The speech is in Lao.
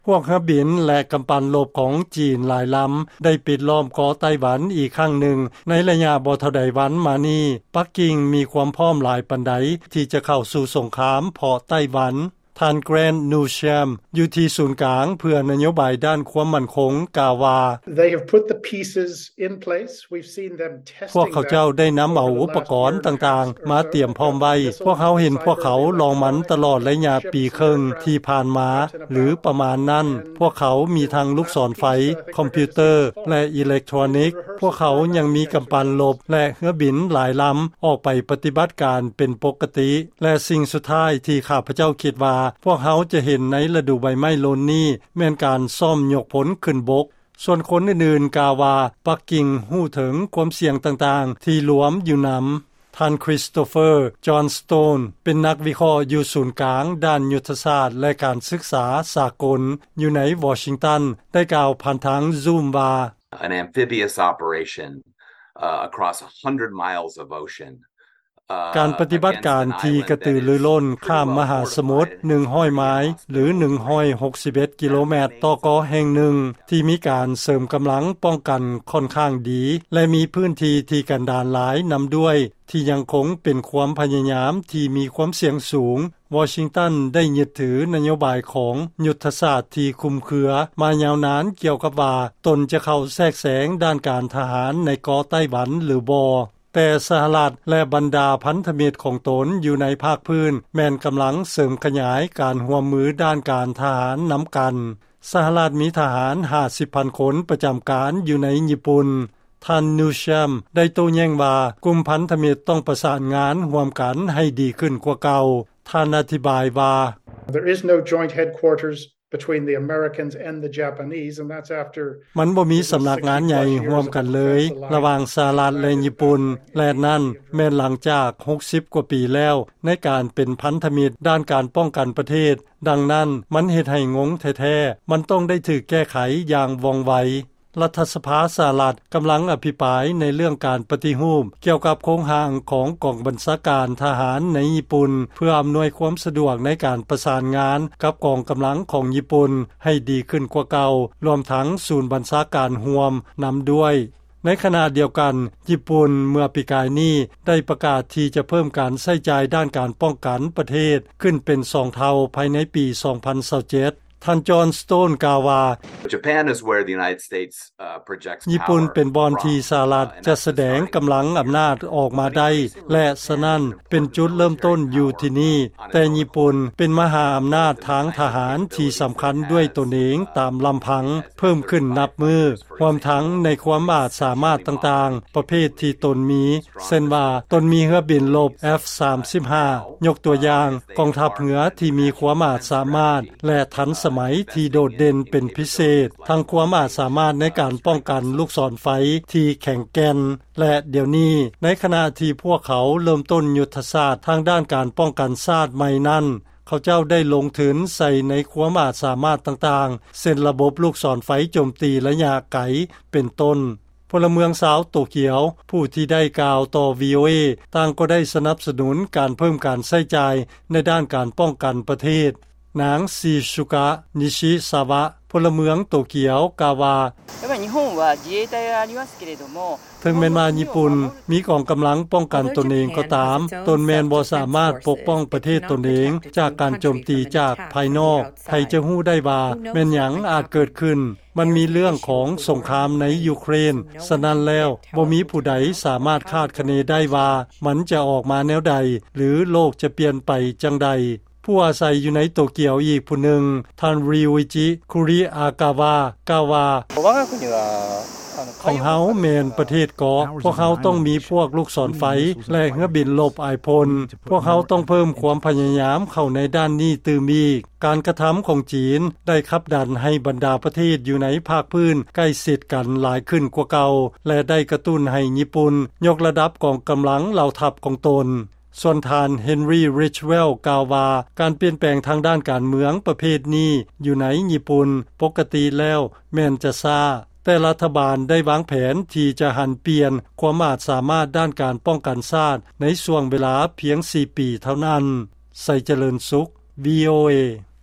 ພວກເຮືອບິນ ແລະ ກຳປັ່ນລົບຂອງຈີນຫຼາຍລຳ ໄດ້ປິດລ້ອມເກາະໄຕ້ຫວັນອີກຄັ້ງໜຶ່ງ ໃນໄລຍະບໍ່ເທົ່າໃດວັນມານີ້. ປັກກິ່ງມີຄວາມພ້ອມຫຼາຍປານໃດ ທີ່ຈະເຂົ້າສູ່ສົງຄາມເພາະໄຕ້ຫວັນ? ທ່ານ Grant Newsham ຢູ່ທີ່ສູນກາງເພື່ອນະໂຍບາຍດ້ານຄວາມໝັ້ນຄົງ ກ່າວວ່າ: They have put the pieces in place. We've seen them testing them over the last year and a half or so. ພວກເຂົາເຈົ້າໄດ້ນຳເອົາອຸປະກອນຕ່າງໆມາຕຽມພ້ອມໄວ້. ພວກເຮົາເຫັນພວກເຂົາລອງມັນຕະຫຼອດໄລຍະປີເຄິ່ງທີ່ຜ່ານມາ ຫຼື ປະມານນັ້ນ. ພວກເຂົາມີທັງລູກສອນໄຟ, ຄອມພິວເຕີ ແລະ ອີເລັກໂທຣນິກ. ພວກເຂົາຍັງມີກຳປັ່ນລົບ ແລະ ເຮືອບິນຫຼາຍລຳອອກໄປປະຕິບັດການເປັນປົກກະຕິ. ແລະ ສິ່ງສຸດທ້າຍທີ່ຂ້າພະເຈົ້າຄິດວ່າພວກເຮົາຈະເຫັນໃນລະດູໃບໄມ້ຫຼົ່ນນີ້ ແມ່ນການຊ້ອມຍົກພົນຂຶ້ນບົກ. ສ່ວນຄົນອື່ນໆກ່າວວ່າ ປັກກິ່ງຮູ້ເຖິງຄວາມສ່ຽງຕ່າງໆທີ່ລວມຢູ່ນຳ. ທ່ານ Christopher Johnstone ເປັນນັກວິເຄາະຢູ່ສູນກາງດ້ານຍຸດທະສາດ ແລະ ການສຶກສາສາກົນ ຢູ່ໃນວໍຊິງຕັນ ໄດ້ກ່າວຜ່ານທາງ Zoom ວ່າ: An amphibious operation, uh, across a hundred miles of ocean. ການປະຕິບັດການທີ່ກະຕືລືລົ້ນຂ້າມມະຫາສະໝຸດ ໜຶ່ງຮ້ອຍໄມລ໌ ຫຼື ໜຶ່ງຮ້ອຍຫົກສິບເອັດກິໂລແມັດ ຕໍ່ເກາະແຫ່ງໜຶ່ງ ທີ່ມີການເສີມກຳລັງປ້ອງກັນຂ້ອນຂ້າງດີ ແລະ ມີພື້ນທີ່ທີ່ກັນດານຫຼາຍນຳດ້ວຍ ທີ່ຍັງຄົງເປັນຄວາມພະຍາຍາມທີ່ມີຄວາມສ່ຽງສູງ. ວໍຊິງຕັນໄດ້ຍຶດຖືນະໂຍບາຍຂອງຍຸດທະສາດທີ່ຄຸມເຄືອມາຍາວນານກ່ຽວກັບວ່າ ຕົນຈະເຂົ້າແຊກແຊງດ້ານການທະຫານໃນເກາະໄຕ້ຫວັນ ຫຼື ບໍ່. ແຕ່ສະຫະລັດ ແລະ ບັນດາພັນທະມິດຂອງຕົນຢູ່ໃນພາກພື້ນ ແມ່ນກຳລັງເສີມຂະຫຍາຍການຮ່ວມມືດ້ານການທະຫານນຳກັນ. ສະຫະລັດມີທະຫານຫ້າສິບພັນຄົນປະຈຳການຢູ່ໃນຍີ່ປຸ່ນ. ທ່ານ Newsham ໄດ້ໂຕ້ແຍ້ງວ່າ ກຸ່ມພັນທະມິດຕ້ອງປະສານງານຮ່ວມກັນໃຫ້ດີຂຶ້ນກວ່າເກົ່າ. ທ່ານອະທິບາຍວ່າ: There is no joint headquarters between the Americans and the Japanese, and that's after ມັນບໍ່ມີສຳນັກງານໃຫຍ່ຮ່ວມກັນເລີຍ ລະຫວ່າງສະຫະລັດ ແລະ ຍີ່ປຸ່ນ ແລະ ນັ້ນແມ່ນຫຼັງຈາກຫົກສິບກວ່າປີແລ້ວ ໃນການເປັນພັນທະມິດດ້ານການປ້ອງກັນປະເທດ. ດັ່ງນັ້ນ ມັນເຮັດໃຫ້ງົງແທ້ໆ. ມັນຕ້ອງໄດ້ຖືກແກ້ໄຂຢ່າງວ່ອງໄວ. ລັດຖະສະພາສະຫະລັດກຳລັງອະພິປາຍໃນເລື່ອງການປະຕິຮູບກ່ຽວກັບໂຄງຮ່າງຂອງກອງບັນຊາການທະຫານໃນຍີ່ປຸ່ນ ເພື່ອອຳນວຍຄວາມສະດວກໃນການປະສານງານກັບກອງກຳລັງຂອງຍີ່ປຸ່ນໃຫ້ດີຂຶ້ນກວ່າເກົ່າ, ລວມທັງສູນບັນຊາການຮ່ວມນຳດ້ວຍ. ໃນຂະນະດຽວກັນ, ຍີ່ປຸ່ນເມື່ອປີກາຍນີ້ໄດ້ປະກາດທີ່ຈະເພີ່ມການໃຊ້ຈ່າຍດ້ານການປ້ອງກັນປະເທດຂຶ້ນເປັນສອງເທົ່າພາຍໃນປີສອງພັນຊາວເຈັດ. ທ່ານ Johnstone ກ່າວວ່າ: Japan is where the United States, uh, projects power from. ຍີ່ປຸ່ນເປັນບ່ອນທີ່ສະຫະລັດຈະສະແດງກຳລັງອຳນາດອອກມາໄດ້ ແລະ ສະນັ້ນເປັນຈຸດເລີ່ມຕົ້ນຢູ່ທີ່ນີ້. ແຕ່ຍີ່ປຸ່ນເປັນມະຫາອຳນາດທາງທະຫານທີ່ສຳຄັນດ້ວຍຕົນເອງຕາມລຳພັງ ເພີ່ມຂຶ້ນນັບມື້, ຮວມທັງໃນຄວາມອາດສາມາດຕ່າງໆປະເພດທີ່ຕົນມີ, ເຊັ່ນວ່າ ຕົນມີເຮືອບິນລົບ F ສາມສິບຫ້າ ຍົກຕົວຢ່າງ, ກອງທັບເຮືອທີ່ມີຄວາມອາດສາມາດ ແລະ ທັນສະໄໝທີ່ໂດດເດັ່ນເປັນພິເສດ, ທັງຄວາມອາດສາມາດໃນການປ້ອງກັນລູກສອນໄຟທີ່ແຂງແກ່ນ, ແລະ ດຽວນີ້, ໃນຂະນະທີ່ພວກເຂົາເລີ່ມຕົ້ນຍຸດທະສາດທາງດ້ານການປ້ອງກັນຊາດໃໝ່ນັ້ນ, ເຂົາເຈົ້າໄດ້ລົງທຶນໃສ່ໃນຄວາມອາດສາມາດຕ່າງໆ, ເຊັ່ນ ລະບົບລູກສອນໄຟໂຈມຕີໄລຍະໄກ ເປັນຕົ້ນ. ພົນລະເມືອງຊາວໂຕກຽວ ຜູ້ທີ່ໄດ້ກ່າວຕໍ່ VOA ຕ່າງກໍໄດ້ສະໜັບສະໜູນການເພີ່ມການໃຊ້ຈ່າຍໃນດ້ານການປ້ອງກັນປະເທດ. ນາງ ຊີຊຸກະ ນິຊິຊາວະ ພົນລະເມືອງໂຕກຽວ ກ່າວວ່າ: やっぱり日本は自衛隊がありますけれども、 ເຖິງແມ່ນວ່າຍີ່ປຸ່ນມີກອງກຳລັງປ້ອງກັນຕົນເອງກໍຕາມ, ຕົນແມ່ນບໍ່ສາມາດປົກປ້ອງປະເທດຕົນເອງຈາກການໂຈມຕີຈາກພາຍນອກ. ໃຜຈະຮູ້ໄດ້ວ່າແມ່ນຫຍັງອາດເກີດຂຶ້ນ? ມັນມີເລື່ອງຂອງສົງຄາມໃນຢູເຄຣນ, ສະນັ້ນແລ້ວ ບໍ່ມີຜູ້ໃດສາມາດຄາດຄະເນໄດ້ວ່າມັນຈະອອກມາແນວໃດ ຫຼື ໂລກຈະປ່ຽນໄປຈັ່ງໃດ. ຜູ້ອາໄສຢູ່ໃນໂຕກຽວອີກຜູ້ໜຶ່ງ, ທ່ານ ຣິວອິຈິ ຄຸຣິອາກາວາ ກ່າວວ່າ: 我が国は、あの、 ຂອງເຮົາແມ່ນປະເທດເກາະ, ພວກເຮົາຕ້ອງມີພວກລູກສອນໄຟ ແລະ ເຮືອບິນລົບອາຍພົນ. ພວກເຮົາຕ້ອງເພີ່ມຄວາມພະຍາຍາມເຂົ້າໃນດ້ານນີ້ຕື່ມອີກ. ການກະທຳຂອງຈີນໄດ້ຂັບດັນໃຫ້ບັນດາປະເທດຢູ່ໃນພາກພື້ນໃກ້ຊິດກັນຫຼາຍຂຶ້ນກວ່າເກົ່າ ແລະ ໄດ້ກະຕຸ້ນໃຫ້ຍີ່ປຸ່ນຍົກລະດັບກອງກຳລັງເຫຼົ່າທັບຂອງຕົນ. ສ່ວນທ່ານ ເຮັນຣີ ຣິດເວລ ກ່າວວ່າ ການປ່ຽນແປງທາງດ້ານການເມືອງປະເພດນີ້ຢູ່ໃນຍີ່ປຸ່ນປົກກະຕິແລ້ວແມ່ນຈະຊ້າ, ແຕ່ລັດຖະບານໄດ້ວາງແຜນທີ່ຈະຫັນປ່ຽນຄວາມອາດສາມາດດ້ານການປ້ອງກັນຊາດໃນຊ່ວງເວລາພຽງສີ່ປີເທົ່ານັ້ນ. ໄຊຈະເລີນສຸກ VOA.